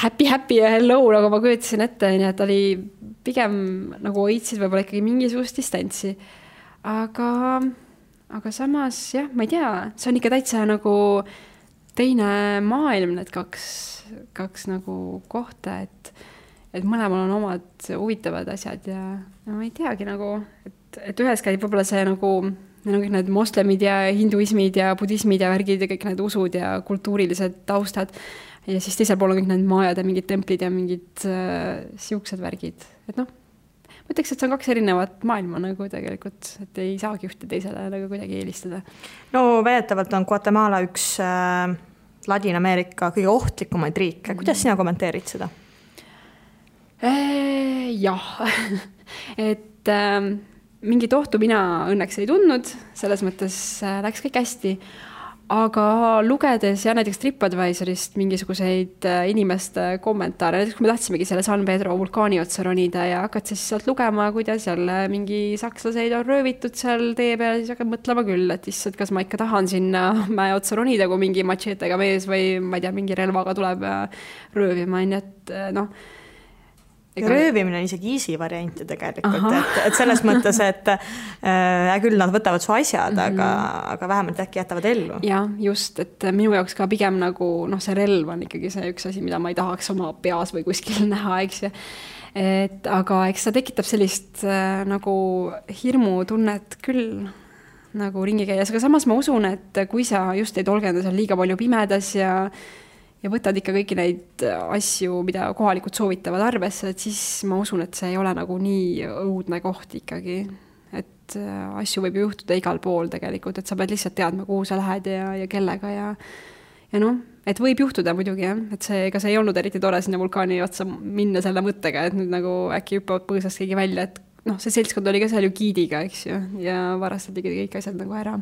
happy ja hello, nagu ma kujutasin ette, nii et oli pigem nagu hoidsid võib-olla ikkagi mingisugust distantsi. Aga aga samas jah, ma ei tea, see on ikka täitsa nagu teine maailm, need kaks nagu kohta, et mõlemal on omad huvitavad asjad ja ma ei teagi nagu, et ühes käib võib-olla see nagu neil on kõik need moslemid ja hinduismid ja budismid ja värgid ja kõik need usud ja kultuurilised taustad ja siis teisel pool on kõik need maajad ja mingid templid ja mingid siuksed värgid, et noh, ma ütleks, et see on kaks erinevat maailma nagu tegelikult, et ei saagi ühte teisele nagu kuidagi eelistada. No väidetavalt on Guatemala üks Ladina-Ameerika kõige ohtlikumaid riike. Kuidas sina kommenteerid seda? Jah, et mingit ohtu mina õnneks ei tundnud, selles mõttes läks kõik hästi, aga lugedes ja näiteks TripAdvisorist mingisuguseid inimeste kommentaare, näiteks kui me tahtsimegi selle San Pedro vulkaani otsa ronida ja hakkad siis sealt lugema, kuidas jälle mingi sakslaseid on röövitud seal tee peal, siis hakkad mõtlema küll, et issand, kas ma ikka tahan sinna mäe otsa ronida, kui mingi machetega mees või ma ei tea, mingi relvaga tuleb röövima, nii et noh, röövimine on isegi easy variant tegelikult, et selles mõttes, et küll nad võtavad su asjad, aga vähemalt äkki jätavad ellu. Ja just, et minu jaoks ka pigem nagu see relv on ikkagi see üks asi, mida ma ei tahaks oma peas või kuskil näha, eks ju. Aga eks ta tekitab sellist nagu hirmutunnet küll nagu ringi käies, aga samas ma usun, et kui sa just ei tolgenda seal liiga palju pimedas ja võtad ikka kõiki neid asju, mida kohalikud soovitavad arvesse, et siis ma usun, et see ei ole nagu nii õudne koht ikkagi. Et asju võib juhtuda igal pool tegelikult, et sa pead lihtsalt teadma, kuhu sa lähed ja kellega ja noh, et võib juhtuda muidugi jah, et ega see ei olnud eriti tore sinna vulkaani otsa minna selle mõttega, et nüüd nagu äkki hüppavad põõsast keegi välja, et noh, see seltskond oli ka seal ju giidiga, eks ju, ja varastati kõik asjad nagu ära.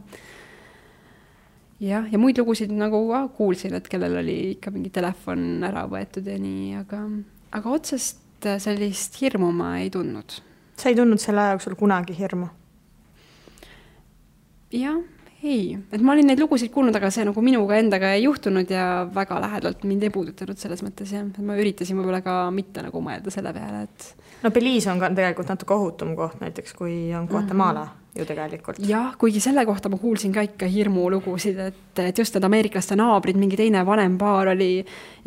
Ja muid lugusid nagu kuulsin, et kellel oli ikka mingi telefon ära võetud ja nii, aga otsest sellist hirmu ma ei tundnud. Sa ei tundnud selle aja jooksul kunagi hirmu? Jah, ei. Et ma olin neid lugusid kuulnud, aga see nagu minuga endaga ei juhtunud ja väga lähedalt mind ei puudutanud selles mõttes. Ja. Ma üritasin võib-olla ka mitte nagu mõelda selle peale, et... No Belize on ka tegelikult natuke ohutum koht näiteks, kui on Guatemala ju tegelikult. Jah, kuigi selle kohta ma kuulsin ka ikka hirmulugusid, et just need ameeriklaste naabrid, mingi teine vanem paar oli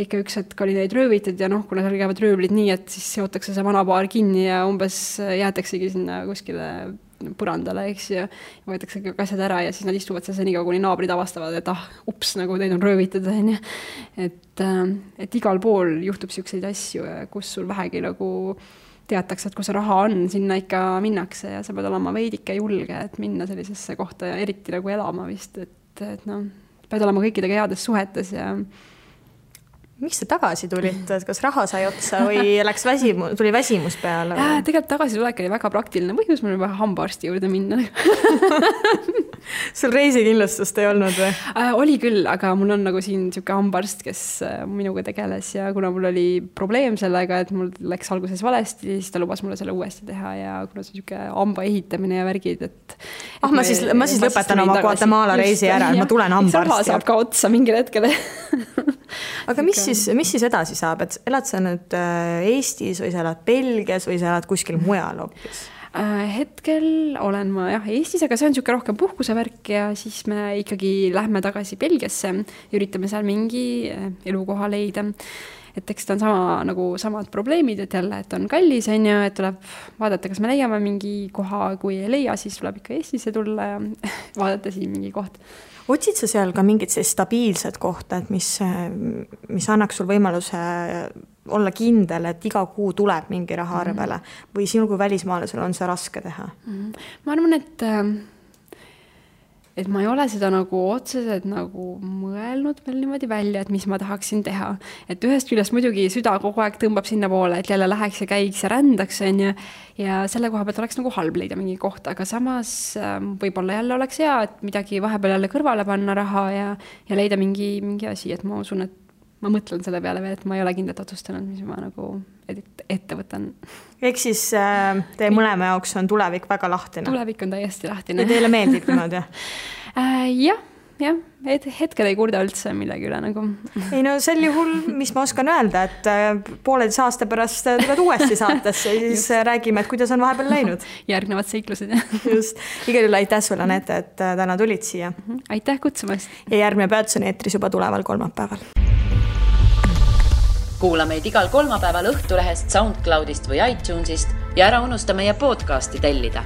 ikka üks hetk oli neid röövitud ja noh, kuna seal käivad röövlid nii, et siis seotakse see vana paar kinni ja umbes jäetaksegi sinna kuskile põrandale, eks ju, ja võetakse kõik asjad ära ja siis nad istuvad seal senikaua, kuni naabrid avastavad, et ups, nagu teid on röövitud. Et igal pool juhtub siukseid asju, kus sul vähegi nagu teatakse, et kui see raha on, sinna ikka minnakse ja sa pead olema veidike julge, et minna sellisesse kohta ja eriti nagu elama vist, et noh, pead olema kõikidega heades suhetes ja... Miks sa tagasi tulid? Kas raha sai otsa või tuli väsimus peale? Tegelikult tagasi tulek oli väga praktiline põhjus, mul oli vaja hambaarsti juurde minna. Sul reisikindlustust ei olnud või? Oli küll, aga mul on nagu siin siuke hambaarst, kes minuga tegeles ja kuna mul oli probleem sellega, et mul läks alguses valesti, siis ta lubas mulle selle uuesti teha ja kuna see siuke hamba ehitamine ja värgid, et ma siis lõpetan oma Guatemala reisi ära, ma tulen hambaarsti. Raha saab ka otsa mingil hetkel. Aga mis siis edasi saab? Et elad sa nüüd Eestis või sa elad Belgias või sa elad kuskil mujal hoopis? Hetkel olen ma Eestis, aga see on siuke rohkem puhkusevärk ja siis me ikkagi lähme tagasi Belgiasse ja üritame seal mingi elukoha leida. Et eks ta on samad probleemid, et jälle, et on kallis, et tuleb vaadata, kas me leiame mingi koha, kui ei leia, siis tuleb ikka Eestisse tulla ja vaadata siin mingi koht. Otsid sa seal ka mingit stabiilset kohta, et mis annaks sul võimaluse olla kindel, et iga kuu tuleb mingi raha arvele või sinu kui välismaalasel on see raske teha? Ma arvan, et ma ei ole seda nagu otseselt nagu mõelnud veel niimoodi välja, et mis ma tahaksin teha. Et ühest küljest muidugi süda kogu aeg tõmbab sinna poole, et jälle läheks ja käiks ja rändaks ja selle koha pealt oleks nagu halb leida mingi koht, aga samas võib-olla jälle oleks hea, et midagi vahepeal jälle kõrvale panna raha ja leida mingi asi, et ma usun, et ma mõtlen selle peale veel, et ma ei ole kindlalt otsustanud, mis ma nagu ette võtan. Ehk siis teie mõlema jaoks on tulevik väga lahtine? Tulevik on täiesti lahtine. Ja teile meeldib niimoodi? Jah, jah, hetkel ei kurda üldse millegi üle nagu. Ei no sel juhul, mis ma oskan öelda, et pooleteise aasta pärast tuled uuesti saatesse ja siis räägime, et kuidas on vahepeal läinud. Järgnevad seiklused. Just, igal juhul aitäh sulle, Anette, et täna tulid siia. Aitäh kutsumast. Ja järgmine peatus on eetris juba tuleval kolmapäeval. Kuula meid igal kolmapäeval Õhtulehest, SoundCloudist või iTunesist ja ära unusta meie podcasti tellida.